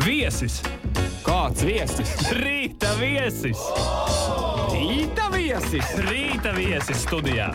Viesis! Kāds viesis? Rīta viesis! Rīta viesis! Rīta viesis studijā!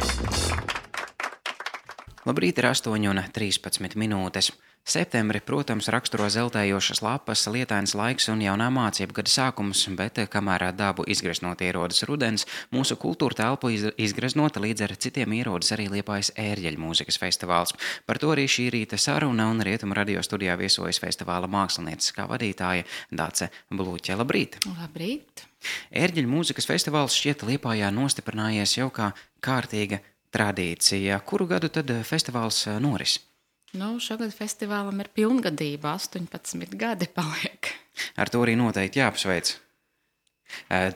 Labrīt, ir 8:13 minūtes. Septembri, protams, raksturo zeltējošas lapas, lietains laiks un jaunā mācību gada sākums, bet kamēr dabu izgreznot ierodas rudens, mūsu kultūra telpu izgreznota līdz ar citiem ierodas arī Liepājas ērģeļu mūzikas festivāls. Par to arī šī rīta saruna un Rietumu radio studijā viesojas festivāla mākslinieces vadītāja Dace Bluķe. Labrīt! Labrīt! Ērģeļu mūzikas festivāls šķiet Liepājā nostiprinājies jau kā kārtīga tradīcija. Kuru gadu tad festivāls noris? Šogad festivālam ir pilngadība, 18 gadi paliek. Ar to arī noteikti jāapsveic.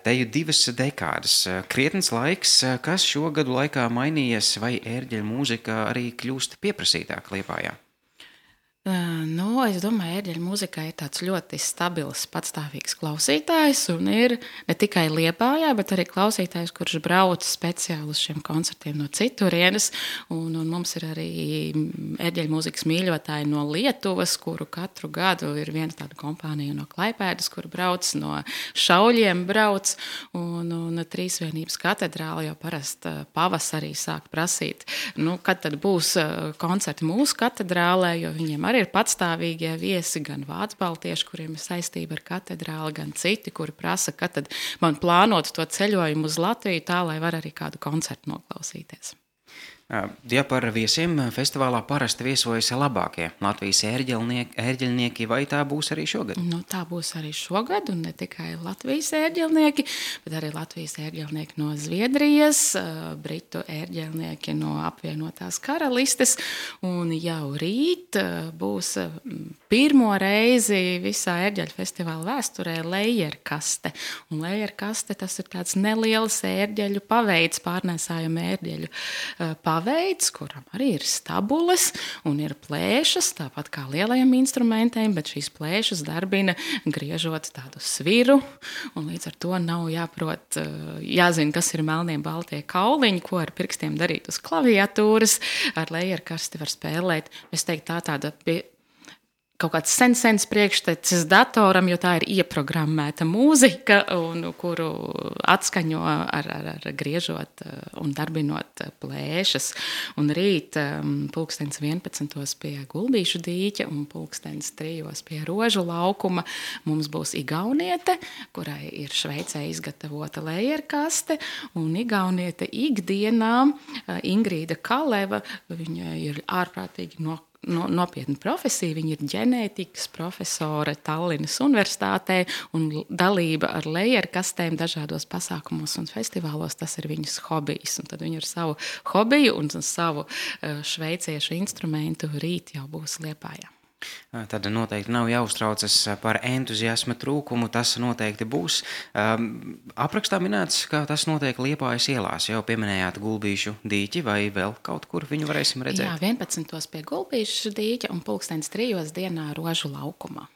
Te jau 2 dekādas, krietns laiks, kas šo gadu laikā mainījies, vai ērģeļu mūzika arī kļūst pieprasītāk Liepājā? Es domāju, ērģeļu mūzikā ir tāds ļoti stabils, patstāvīgs klausītājs, un ir ne tikai Liepājā, bet arī klausītājs, kurš brauc speciāli uz šiem koncertiem no citurienes, un mums ir arī ērģeļu mūzikas mīļotāji no Lietuvas, kuru katru gadu ir viena tāda kompānija no Klaipēdas, kur brauc, no Šauļiem brauc, un Trīsvienības katedrāle jau parasti pavasarī sāk prasīt, kad tad būs koncerti mūsu katedrālē, jo viņiem arī ir patstāvīgie viesi, gan vācu baltieši, kuriem ir saistība ar katedrāli, gan citi, kuri prasa, kad tad man plānot to ceļojumu uz Latviju tā, lai var arī kādu koncertu noklausīties. Ja par viesiem festivālā parasti viesojas labākie Latvijas ērģeļnieki, vai tā būs arī šogad? Tā būs arī šogad, un ne tikai Latvijas ērģeļnieki, bet arī Latvijas ērģeļnieki no Zviedrijas, Britu ērģeļnieki no apvienotās karalistes, un jau rīt būs pirmo reizi visā ērģeļu festivāla vēsturē lejerkaste. Un lejerkaste tas ir tāds neliels ērģeļu paveids, pārnēsājuma ērģeļu paveids, kuram arī ir stabules un ir plēšas, tāpat kā lielajiem instrumentiem, bet šīs plēšas darbina griežot tādu sviru, un līdz ar to nav jāzina, kas ir melnie baltie kauliņi, ko ar pirkstiem darīt uz klaviatūras, ar lejerkasti var spēlēt. Es teiktu, tāda kaut kāds sens priekštecis datoram, jo tā ir ieprogrammēta mūzika, kuru atskaņo ar griežot un darbinot plēšas. Un rīt 11:00 pie Gulbīšu dīķa un 3:00 pie Rožu laukuma mums būs igauniete, kurai ir Šveicē izgatavota lejerkaste, un igauniete ikdienā Ingrīda Kaleva, viņa ir ārprātīgi nopietna profesija, viņa ir ģenētikas profesore Tallinas universitātē, un dalība ar lejerkastēm dažādos pasākumos un festivālos, tas ir viņas hobijs. Un tad viņa ar savu hobiju un savu šveiciešu instrumentu rīt jau būs Liepājā. Tad noteikti nav jāuztraucas par entuziasma trūkumu, tas noteikti būs. Aprakstā minēts, ka tas notiek Liepājas ielās. Jau pieminējāt Gulbīšu dīķi, vai vēl kaut kur viņu varēsim redzēt? Jā, 11:00 pie Gulbīšu dīķa un 3:00 dienā Rožu laukumā.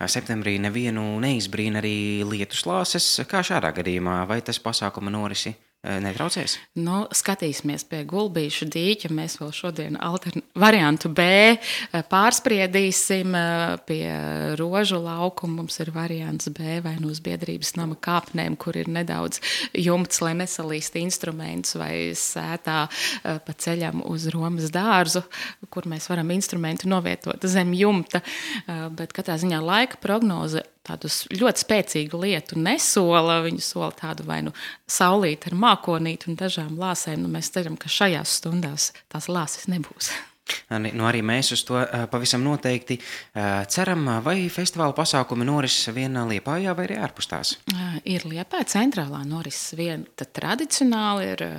Septembrī nevienu neizbrīna arī lietuslāses. Kā šādā gadījumā, vai tas pasākuma norisi netraucēs? Skatīsimies pie Gulbīšu dīķa. Mēs vēl šodien variantu B pārspriedīsim. Pie Rožu laukuma mums ir variants B vai uz Biedrības nama kāpnēm, kur ir nedaudz jumts, lai nesalīst instrumentus, vai sētā pa ceļam uz Romas dārzu, kur mēs varam instrumentu novietot zem jumta. Bet katrā ziņā laika prognoze tādus ļoti spēcīgu lietu nesola. Viņu sola tādu vai saulīt ar mākonīti un dažām lāsēm. Mēs ceram, ka šajās stundās tās lāses nebūs. Arī mēs uz to pavisam noteikti ceram. Vai festivāla pasākumi noris vien Liepājā vai arī ārpus tās? Ir Liepāja centrālā noris vien. Tad tradicionāli ir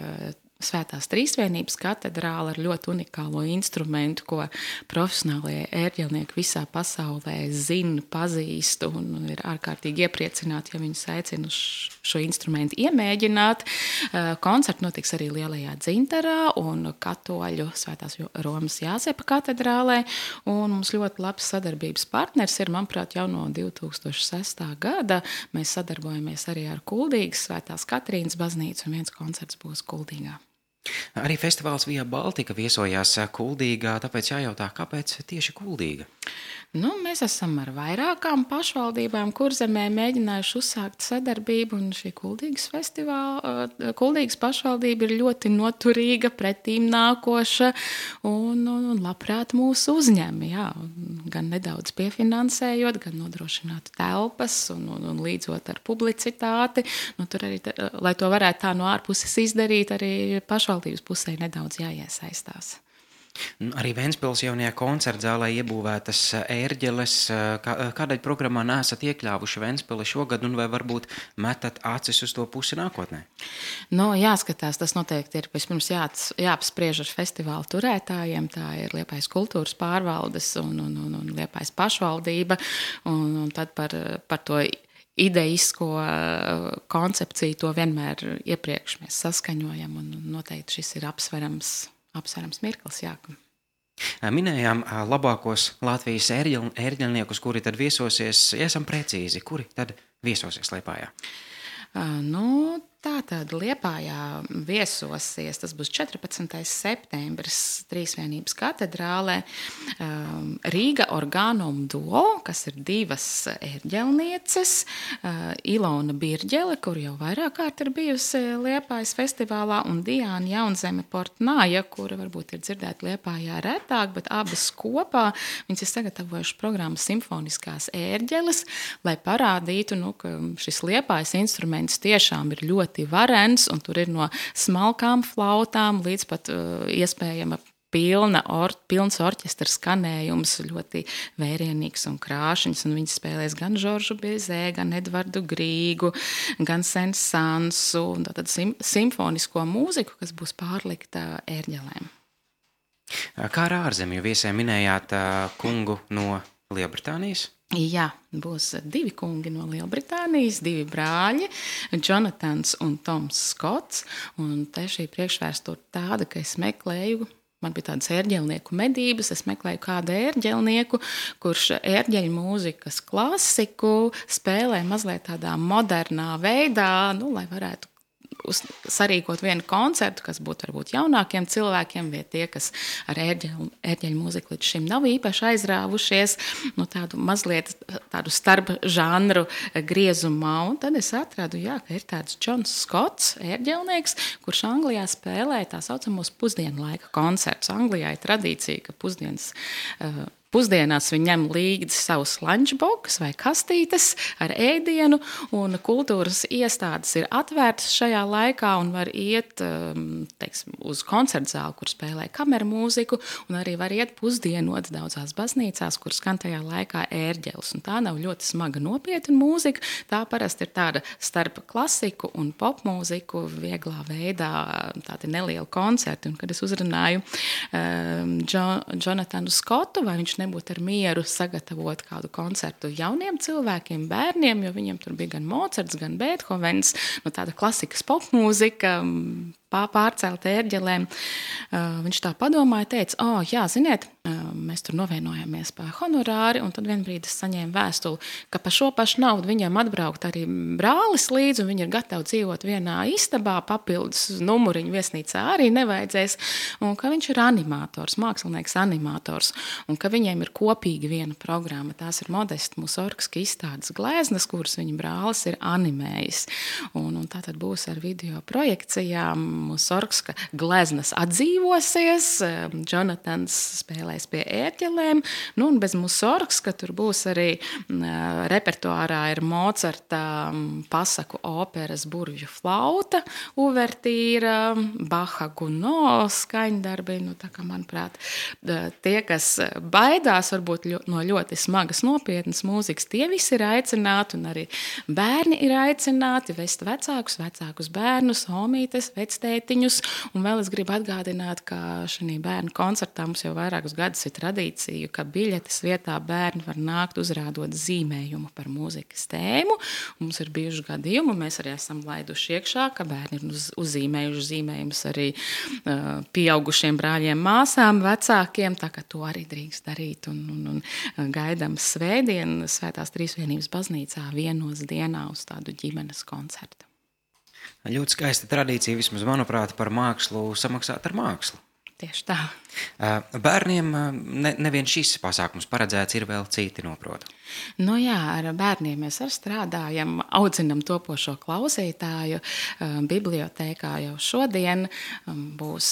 Svētās Trīsvienības katedrāle ar ļoti unikālo instrumentu, ko profesionālie ērģeļnieki visā pasaulē zina, pazīst un ir ārkārtīgi iepriecināti, ja viņus aicina uz šo instrumentu iemēģināt. Koncerti notiks arī Lielajā Dzintarā un Katoļu Svētās Romas Jāzepa katedrālē. Un mums ļoti labs sadarbības partners ir, manuprāt, jau no 2006. gada. Mēs sadarbojamies arī ar Kuldīgas Svētās Katrīnas baznīcu un viens koncerts būs Kuldīgā. Arī festivāls Via Baltica viesojās Kuldīgā, tāpēc jājautā, kāpēc tieši Kuldīga? Mēs esam ar vairākām pašvaldībām Kurzemē mēģinājuši uzsākt sadarbību, un šī Kuldīgas pašvaldība ir ļoti noturīga, pretīm nākoša un labprāt mūs uzņem. Jā, gan nedaudz piefinansējot, gan nodrošināt telpas un līdzot ar publicitāti. Tur arī, lai to varētu tā no ārpuses izdarīt, arī pašvaldības pusē nedaudz jāiesaistās. Arī Ventspils jaunajā koncertzālē iebūvētas ērģeles. Kādēļ programmā neesat iekļāvuši Ventspili šogad un vai varbūt metat acis uz to pusi nākotnē? Jāskatās, tas noteikti ir vispirms jāapspriež ar festivālu turētājiem. Tā ir Liepājas kultūras pārvaldes un Liepājas pašvaldība. Un tad par to ideisko koncepciju to vienmēr iepriekš mēs saskaņojam un noteikti šis ir apsverams mirklis, jā. Minējām labākos Latvijas ērģelniekus, kuri tad viesosies, ja esam precīzi, kuri tad viesosies Liepājā? Tātad Liepājā viesosies, tas būs 14. septembris Trīsvienības katedrālē, Rīga Organum Duo, kas ir divas ērģelnieces, Ilona Birģele, kur jau vairāk kārt ir bijusi Liepājas festivālā, un Diāna Jaunzeme Portnāja, kura varbūt ir dzirdēta Liepājā retāk, bet abas kopā viņas ir sagatavojuši programmu Simfoniskās ērģeles, lai parādītu, ka šis Liepājas instruments tiešām ir ļoti varens, un tur ir no smalkām flautām līdz pat iespējama pilns orķestra skanējums, ļoti vērienīgs un krāšņs, un viņi spēlēs gan Žoržu Bizē, gan Edvardu Grīgu, gan Sensansu, un tātad simfonisko mūziku, kas būs pārlikta ērģelēm. Kā ar ārzemju viesiem minējāt kungu no Lielbritānijas? Jā, būs divi kungi no Lielbritānijas, divi brāļi, Jonatans un Toms Skots, un te šī priekšvēsture tāda, ka es meklēju, man bija tādas ērģelnieku medības, es meklēju kādu ērģelnieku, kurš ērģeļu mūzikas klasiku spēlē mazliet tādā modernā veidā, lai varētu sarīkot vienu koncertu, kas būtu varbūt jaunākiem cilvēkiem, vai tie, kas ar ērģeļu mūziku līdz šim nav īpaši aizrāvušies, tādu starp žanru griezumā. Un tad es atradu, ka ir tāds Džons Skots, ērģelnieks, kurš Anglijā spēlē tā saucamos pusdienlaika koncertus. Anglijā ir tradīcija, ka pusdienās viņi ņem līdzi savus lunchbox vai kastītes ar ēdienu, un kultūras iestādes ir atvērtas šajā laikā un var iet uz koncertzāli, kur spēlē kameru mūziku, un arī var iet pusdienot daudzās baznīcās, kur skan tajā laikā ērģeles. Un tā nav ļoti smaga nopietna mūzika, tā parasti ir tāda starp klasiku un popmūziku vieglā veidā, tādi nelieli koncerti. Un kad es uzrunāju Jonatanu Skotu, vai viņš nebūtu ar mieru sagatavot kādu koncertu jauniem cilvēkiem, bērniem, jo viņiem tur bija gan Mocarts, gan Beethovens, tāda klasikas popmūzika, pārcelt ērģelēm. Viņš tā padomāja, teica, ziniet, mēs tur novienojāmies par honorāri, un tad vienbrīd es saņēmu vēstuli, ka par šo pašu naudu viņiem atbraukt arī brālis līdzi, un viņi ir gatavi dzīvot vienā istabā, papildus numuriņu viesnīcā arī nevajadzēs, un ka viņš ir animators, mākslinieks animators, un ka viņiem ir kopīgi viena programma. Tās ir Modesta Musorgska izstādes gleznas, kuras viņa brālis ir animējis. Un tā tad būs ar video projekcijām. Musorgska gleznas atdzīvosies, Jonatans spēlēs pie ērģelēm, un bez Musorgska tur būs arī repertuārā ir Mocarta pasaku operas Burvju flauta, uvertīra, Baha Gounod skaņdarbi, tā kā, manuprāt, tie, kas baidās varbūt no ļoti smagas nopietnas mūzikas, tie visi ir aicināti, un arī bērni ir aicināti vest vecākus bērnus, homītes, vectētiņus, un vēl es gribu atgādināt, ka šī bērnu koncertā mums jau vairākus gadus ir tradīcija, ka biļetes vietā bērni var nākt uzrādot zīmējumu par mūzikas tēmu. Mums ir bijuši gadījumi, mēs arī esam laiduši iekšā, ka bērni ir uzzīmējuši zīmējumus arī pieaugušiem brāļiem, māsām, vecākiem, tā ka to arī drīkst darīt, un gaidām svētdien Svētās Trīsvienības baznīcā vienos dienā uz tādu ģimenes koncertu. Ļoti skaista tradīcija, vismaz manuprāt, par mākslu samaksāt ar mākslu. Tieši tā. Bērniem nevien šis pasākums paredzēts, ir vēl citi, noprotu. Nu jā, ar bērniem mēs arī strādājam, audzinam topošo klausītāju. Bibliotēkā jau šodien būs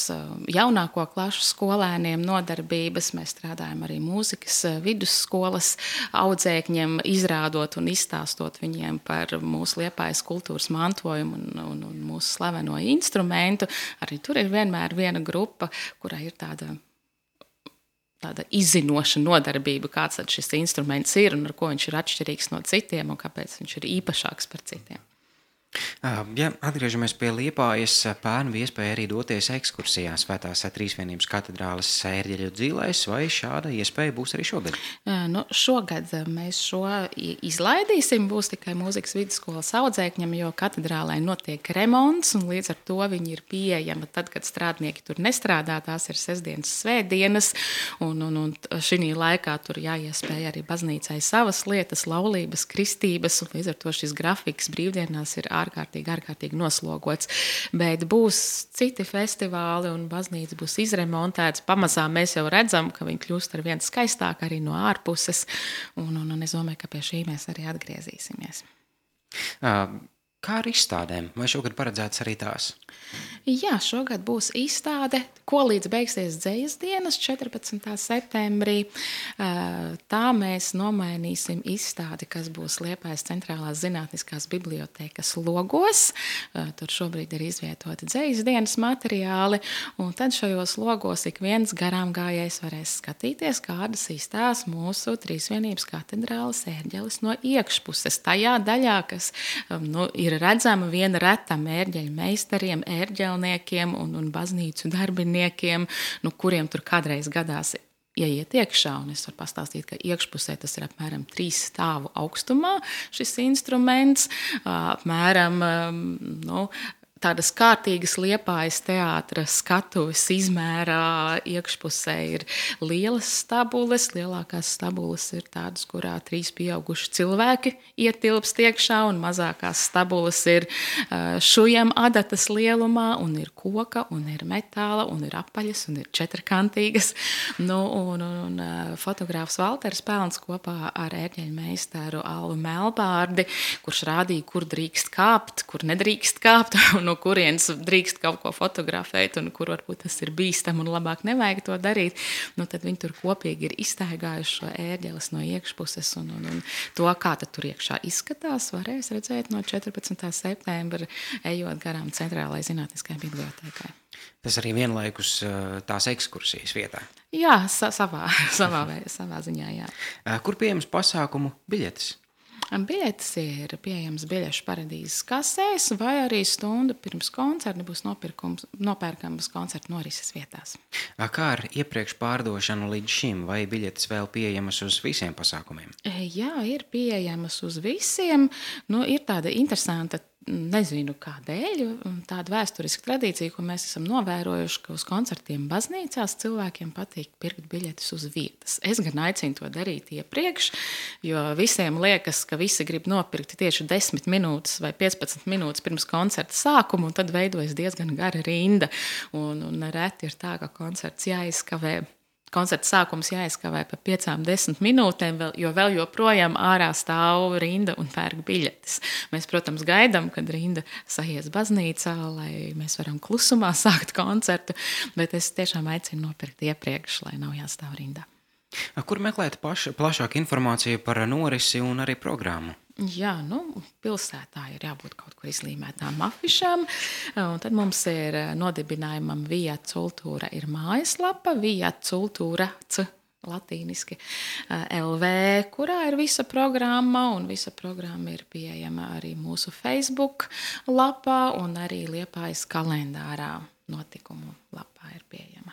jaunāko klašu skolēniem nodarbības. Mēs strādājam arī mūzikas vidusskolas audzēkņiem, izrādot un izstāstot viņiem par mūsu Liepājas kultūras mantojumu un mūsu slaveno instrumentu. Arī tur ir vienmēr viena grupa, kurai ir tāda izzinoša nodarbība, kāds tad šis instruments ir un ar ko viņš ir atšķirīgs no citiem un kāpēc viņš ir īpašāks par citiem. Ja atgriežamies pie Liepājas, pērn bija iespēja arī doties ekskursijā Svētās Trīsvienības katedrāles ērģeļu dzīlēs, vai šāda iespēja būs arī šogad? Šogad mēs šo izlaidīsim, būs tikai mūzikas vidusskolas audzēkņiem, jo katedrālē notiek remonts, un līdz ar to viņi ir pieejama tad, kad strādnieki tur nestrādā, tās ir sestdienas, svētdienas, un šī laikā tur jāiespēja arī baznīcai savas lietas, laulības, kristības, un līdz ar to šis grafiks brīvdienās ir ārkārtīgi noslogots, bet būs citi festivāli un baznīca būs izremontēts. Pamazām mēs jau redzam, ka viņi kļūst ar vien skaistāk arī no ārpuses, un es domāju, ka pie šī mēs arī atgriezīsimies. Kā ar izstādēm? Vai šogad paredzēts arī tās? Jā, šogad būs izstāde, ko līdz beigsies dzejas dienas 14. septembrī. Tā mēs nomainīsim izstādi, kas būs Liepājas centrālās zinātniskās bibliotēkas logos. Tur šobrīd ir izvietoti dzejas dienas materiāli, un tad šajos logos ik viens garām gājējs varēs skatīties, kādas izstās mūsu Trīsvienības katedrāles ērģeles no iekšpuses. Tajā daļā, kas ir redzama viena retam ērģeļu meistariem, ērģelniekiem un baznīcu darbiniekiem, kuriem tur kādreiz gadās ieiet iekšā, un es varu pastāstīt, ka iekšpusē tas ir apmēram 3 stāvu augstumā šis instruments, apmēram, tādas kārtīgas Liepājas teātra skatuves izmērā. Iekšpusē ir lielas stabules. Lielākās stabules ir tādas, kurā 3 pieauguši cilvēki ietilpst iekšā, un mazākās stabules ir šujam adatas lielumā, un ir koka, un ir metāla, un ir apaļas, un ir četrkantīgas. Un fotogrāfs Valters Pelns kopā ar ērģeļu meistaru Alvu Melbārdi, kurš rādīja, kur drīkst kāpt, kur nedrīkst kāpt, no kurienes drīkst kaut ko fotografēt un kur varbūt tas ir bīstam un labāk nevajag to darīt, tad viņi tur kopīgi ir izstaigājuši šo ērģeles no iekšpuses un to, kā tad tur iekšā izskatās, varēs redzēt no 14. septembra, ejot garām centrālajai zinātniskajai bibliotēkai. Tas arī vienlaikus tās ekskursijas vietā? Jā, savā ziņā, jā. Kur pieejams pasākumu biļetes? Biļetes ir pieejams biļešu paradīzes kasēs, vai arī stundu pirms koncerta būs nopērkamas koncerta norises vietās. Kā ar iepriekš pārdošanu līdz šim, vai biļetes vēl pieejamas uz visiem pasākumiem? Jā, ir pieejamas uz visiem. Ir tāda interesanta, nezinu kādēļ, tāda vēsturiska tradīcija, ko mēs esam novērojuši, ka uz koncertiem baznīcās cilvēkiem patīk pirkt biļetes uz vietas. Es gan aicinu to darīt iepriekš, jo visiem liekas, ka visi grib nopirkt tieši 10 minūtes vai 15 minūtes pirms koncerta sākuma, un tad veidojas diezgan gara rinda. Un reti ir tā, ka koncerts jāizkavē. Koncerta sākums jāizkavē pa 5-10 minūtēm, jo vēl joprojām ārā stāv rinda un pērk biļetes. Mēs, protams, gaidām, kad rinda sajies baznīcā, lai mēs varam klusumā sākt koncertu, bet es tiešām aicinu nopirkt iepriekš, lai nav jāstāv rindā. Kur meklēt plašāku informāciju par norisi un arī programmu? Jā, pilsētā ir jābūt kaut kur izlīmētām afišām, un tad mums ir nodibinājumam Via Cultura ir mājaslapa, Via Cultura latīniski LV, kurā ir visa programma, un visa programma ir pieejama arī mūsu Facebook lapā, un arī Liepājas kalendārā notikumu lapā ir pieejama.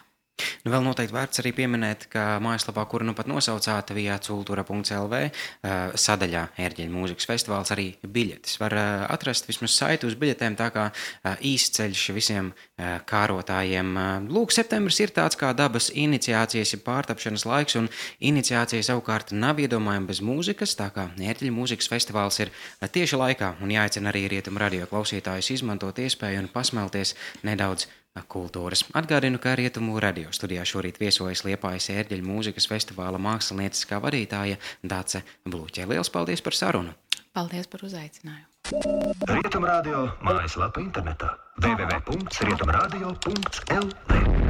Vēl noteikti vērts arī pieminēt, ka mājaslapā, kuru pat nosaucāt, viacultura.lv, sadaļā ērģeļu mūzikas festivāls, arī biļetes. Var atrast vismaz saiti uz biļetēm, tā kā īsts ceļš visiem kārotājiem. Lūk, septembris ir tāds kā dabas iniciācijas, ja pārtapšanas laiks, un iniciācija savukārt nav iedomājama bez mūzikas, tā kā ērģeļu mūzikas festivāls ir tieši laikā, un jāicina arī Rietumu radio klausītājus izmantot iespēju un pasmelties nedaudz kultūras. Atgādinu, ka Rietumu radio studijā šorīt viesojas Liepājas ērģeļu mūzikas festivāla mākslinieckā vadītāja Dace Bluķe. Liels paldies par sarunu! Paldies par uzaicinājumu! Rietumu radio mājaslapa internetā www.rietumradio.lv